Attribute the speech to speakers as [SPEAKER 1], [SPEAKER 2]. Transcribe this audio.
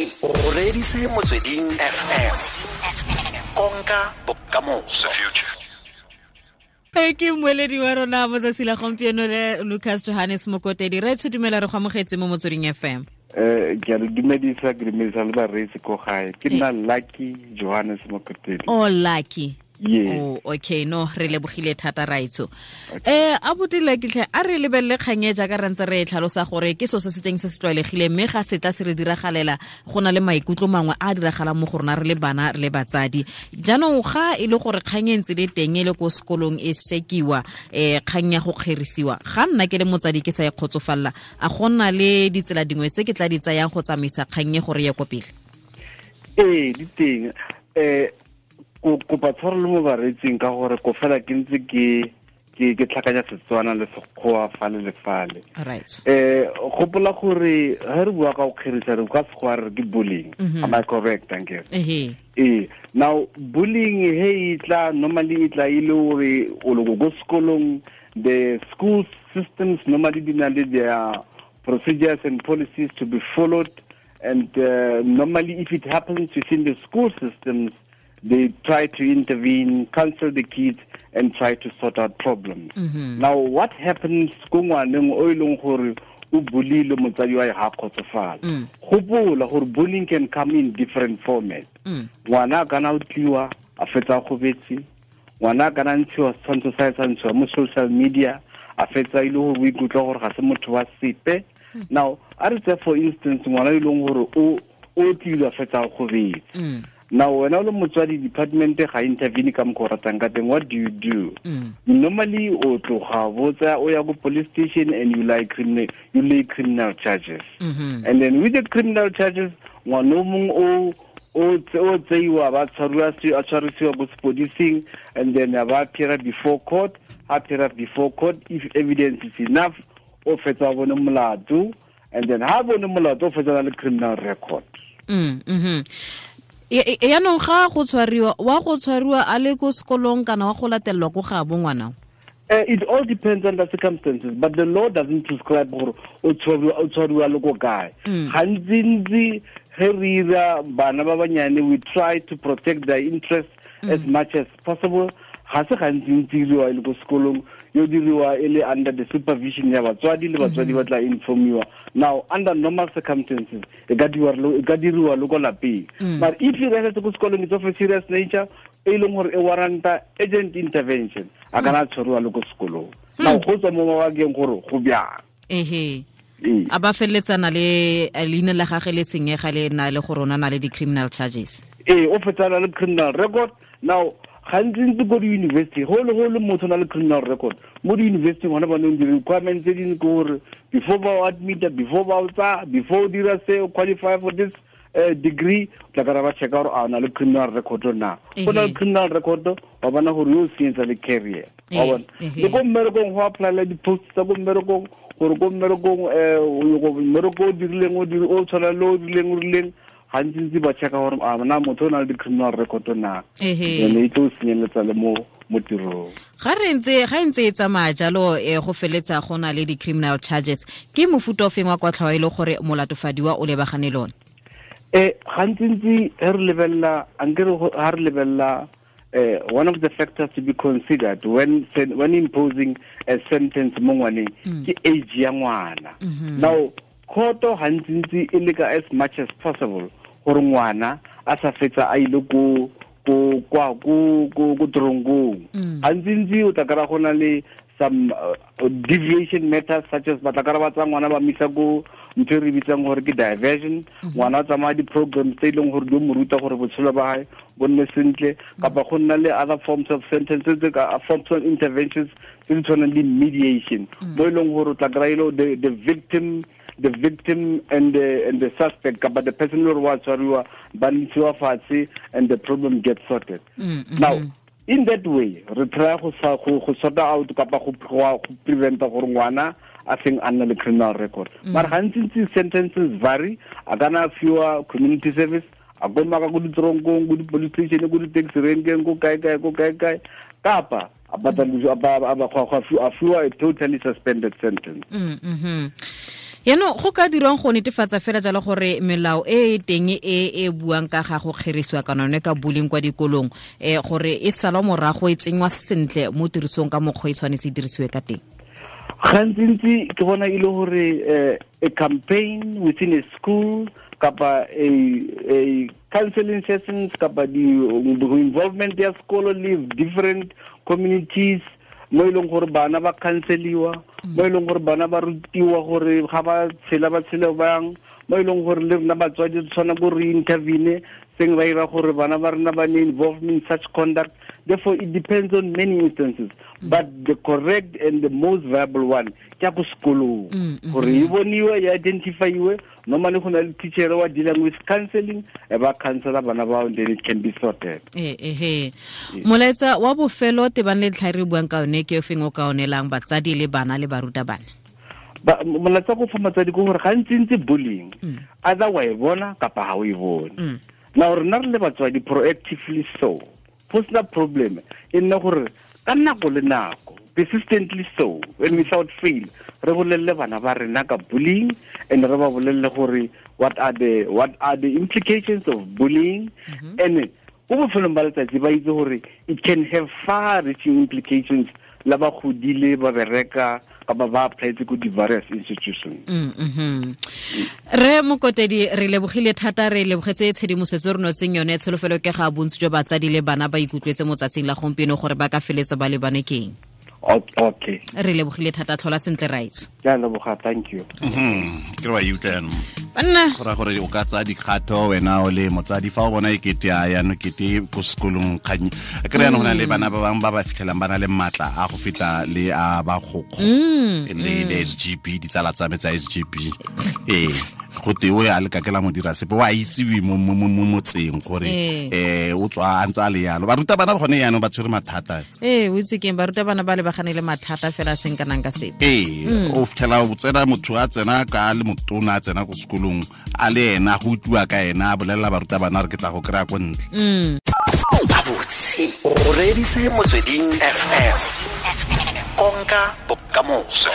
[SPEAKER 1] O reditse Motsweding FM. Konka bokamoso.
[SPEAKER 2] Ke mmoledi wa rona mo tsatsi la gompieno le Lucas Johannes Mokotedi. Re dumela re go amogetse mo Motsweding FM.
[SPEAKER 3] Ke a le dumedisa, ke dumedisa le bareetsi ko gae. Ke nna Lucky Johannes Mokotedi.
[SPEAKER 2] Oh, Lucky.
[SPEAKER 3] Yes.
[SPEAKER 2] Oh, okay, no, re lebogile thata raitso. Abuti Lucky tlhe, a re lebelele kgang e jaaka re ntse re e tlhalosa gore ke so se se teng se se tlwaelegileng, mme ga se tla se re diragalela go na le maikutlo mangwe a diragalang mo go rona re le bana re le batsadi. Jaanong ga e le gore kgang e ntse le teng e le ko sekolong e sekiwa, kgang ya go kgerisiwa, ga nna ke le motsadi ke sa e kgotsofalla, a go nna le ditsela dingwe tse ke tla di tsayang go tsamaisa kgang e gore ye ko pele?
[SPEAKER 3] Ee, di teng. Kopa tshwarelo mo bareetsing ka gore ko fela ke ntse ke tlhakanya Setswana le Sekgowa fale le fale.
[SPEAKER 2] Right.
[SPEAKER 3] Gopola gore ha re bua ka go kgerisa re ka Sekgowa re ke bullying. Am I correct? Thank you. Now bullying he itla normally itla ile gore o le go sekolong, the school systems normally di na le their procedures and policies to be followed, and normally if it happens within the school systems, they try to intervene, counsel the kids, and try to sort out problems. Now, what happens ko ngwaneng o e leng gore o bulile motsadi wa ga kgotsofala? Gopola gore bullying can come in different formats. Ngwana a kana o tliwa a fetsa gobetse, ngwana a kana ntshiwa setshwantsho sa sa ntshiwa mo social media, a fetsa ile gore o ikutlwa gore ga se motho wa sepe. Now, a re tse for instance ngwana e leng gore o tlile a fetsa gobetse. Now, when all motswadi department ga intervene ka mokgwa o ratang ka teng, what do you do? Normally, o tloga botsa o ya go police station and you lay criminal charges. And then with the criminal charges, ngwana o mongwe o tseiwa ba tshwariwa a tshwarisiwa ko sepodising, and then ba appear before court. Appear before court, if evidence is enough, o fetsa bone molato, and then ha bone molato o fetsa le criminal record.
[SPEAKER 2] Yaanong ga go tshwariwa, wa go tshwariwa a le ko sekolong kana wa go latelelwa ko ga bo ngwana?
[SPEAKER 3] It all depends on the circumstances, but the law doesn't prescribe gore o tshwariwa le ko kae. Gantsi ge re ira bana ba banyane, we try to protect their interests as much as possible. Ga se gantsi diriwa e le ko sekolong, yo diriwa e le under the supervision ya batswadi, le batswadi ba tla informiwa. Now, under normal circumstances, e ka diriwa le ko lapeng. But if you rest ko sekolong, it's of a serious nature, e leng gore e warranta urgent intervention, a kana tshwariwa le ko sekolong. Now, go tswa mo mabakeng gore go bjang.
[SPEAKER 2] A ba feleletsana le leina la gagwe le senyega le na le gore o na le di-criminal charges.
[SPEAKER 3] O fetsana le criminal record. Now, gantsi ko di-university, go le motho na le criminal record mo di-university, gona ba neng di-requirements tse dingwe ke gore before ba o admita, before ba o tsaya, before o dira se o qualify for this degree, tla kara ba checka gore a o na le criminal record na. Go na le criminal record, wa bona gore yo o senyetsa le career. Wa bona. Le ko mmerekong go applyela di-post tsa ko mmerekong, gore ko mmerekong mmereko o dirileng o tshwana le o rileng, gantsi ba checka gore a na motho o na le di-criminal record na. Ene e tlo senyeletsa le mo tirong.
[SPEAKER 2] Ga ntse e tsamaya jalo, go feletsa go na le di-criminal charges, ke mofuta o feng wa kwatlhao e le gore molatofadiwa o lebagane le one?
[SPEAKER 3] Gantsi re lebelela, ha re lebelela, one of the factors to be considered when imposing a sentence mo ngwaneng ke age ya ngwana. Now, khoto gantsi e leka as much as possible gore ngwana a sa fetsa a ile ko tronkong. Gantsi o tla kry-a go na le some deviation matters such as ba tla kry-a ba tsaya ngwana ba misa ko ntho e re bitsang gore ke diversion. Ngwana o tsamaya di-programs tse e leng gore di mo ruta gore botshelo ba hae bo nne sentle, kapa go nna le other forms of sentences, forms of interventions tse di tshwanang le mediation, mo e leng gore o tla kry-a the victim and the suspect, kapa the person who wa tshwariwa ba ntshiwa fatshe, and the problem gets sorted. Now, in that way, re try go sort out kapa go preventa gore ngwana a seng a nna le criminal record. Mara gantsi sentences vary, a kana fiwa community service, a go maka go ditronkong, go di-police station, go di-taxi renkeng, ko kae kae, ko kae kae, kapa a fiwa a totally suspended sentence.
[SPEAKER 2] Yaanong go ka dirwang go netefatsa fela jalo gore melao e e teng e e buang ka ga go kgerisiwa kana yone ka bullying kwa dikolong gore e salwa morago e tsenngwa sentle mo tirisong ka mokgwa e tshwanetse e dirisiwe ka teng?
[SPEAKER 3] Gantsintsi ke bona e le gore a campaign within a school kapa a counseling sessions kapa di involvement ya sekolo le different communities mo e leng gore bana ba counseliwa, mo e leng gore bana ba rutiwa gore ga ba tshela ba tshele bang, mo e leng gore le rena batswadi re tshwana go re intervene seng ba ira gore bana ba rena ba ne involved in such conduct. Therefore it depends on many instances, but the correct and the most viable one ke ya ko sekolong gore e boniwe, e identifyiwe. Normally go na le teacher wa dealing with counseling, e ba counsela bana bao, then it can be sorted.
[SPEAKER 2] Molaetsa wa bofelo tebang le ntlha e re buang ka yone ke o feng o ka onelang batsadi le bana le barutabana?
[SPEAKER 3] Molaetsa go fa batsadi ke gore gantsintsi bullying either wa e bona kapa ha o e bone. Now rena re le batswadi proactively so personal problem e nna gore ka nako le nako persistently so and without fail re bolelle bana ba rena ka bullying and re ba bolelle gore what are the implications of bullying, and ko bofelong ba letsatsi ba itse gore it can have far reaching implications la ba godile ba bereka kapa ba applyetse ko di-various institutions.
[SPEAKER 2] Re Mokotedi, re lebogile thata, re lebogetse tshedimosetso re notseng yone. Tsholofelo ke ga bontsi jwa batsadi le bana ba ikutlwetse mo tsatsing la gompieno gore ba ka feletsa ba lebane keng.
[SPEAKER 3] Okay.
[SPEAKER 2] Re lebogile thata, tlhola sentle raitso.
[SPEAKER 3] Ke a leboga, thank you.
[SPEAKER 4] Ke re wa utlwa jaanong.
[SPEAKER 2] Banna.
[SPEAKER 4] Go raya gore o ka tsaya dikgato wena o le motsadi fa o bona e kete a jaanong kete ko sekolong kgang. Ke re jaanong go na le bana ba bangwe ba ba fitlhelang ba na le maatla a go feta le a ba gokgo le SGB, ditsala tsa me tsa SGB. Ee, go te o ya le ka ke la mo dira sepe, wa itsiwe mo motseng gore o tswa a ntse a le yalo. Barutabana gone jaanong ba tshwere mathata.
[SPEAKER 2] Ee, o itse keng, barutabana ba lebagane le mathata fela seng kanang ka sepe.
[SPEAKER 4] Ee, o fitlhela o tsena motho a tsena ka le motona a tsena ko sekolong a le ena go utlwa ka ena a bolelela barutabana re ke tla go kry-a ko ntle.
[SPEAKER 1] Gabotse o reeditse Motsweding FM, konka bokamoso.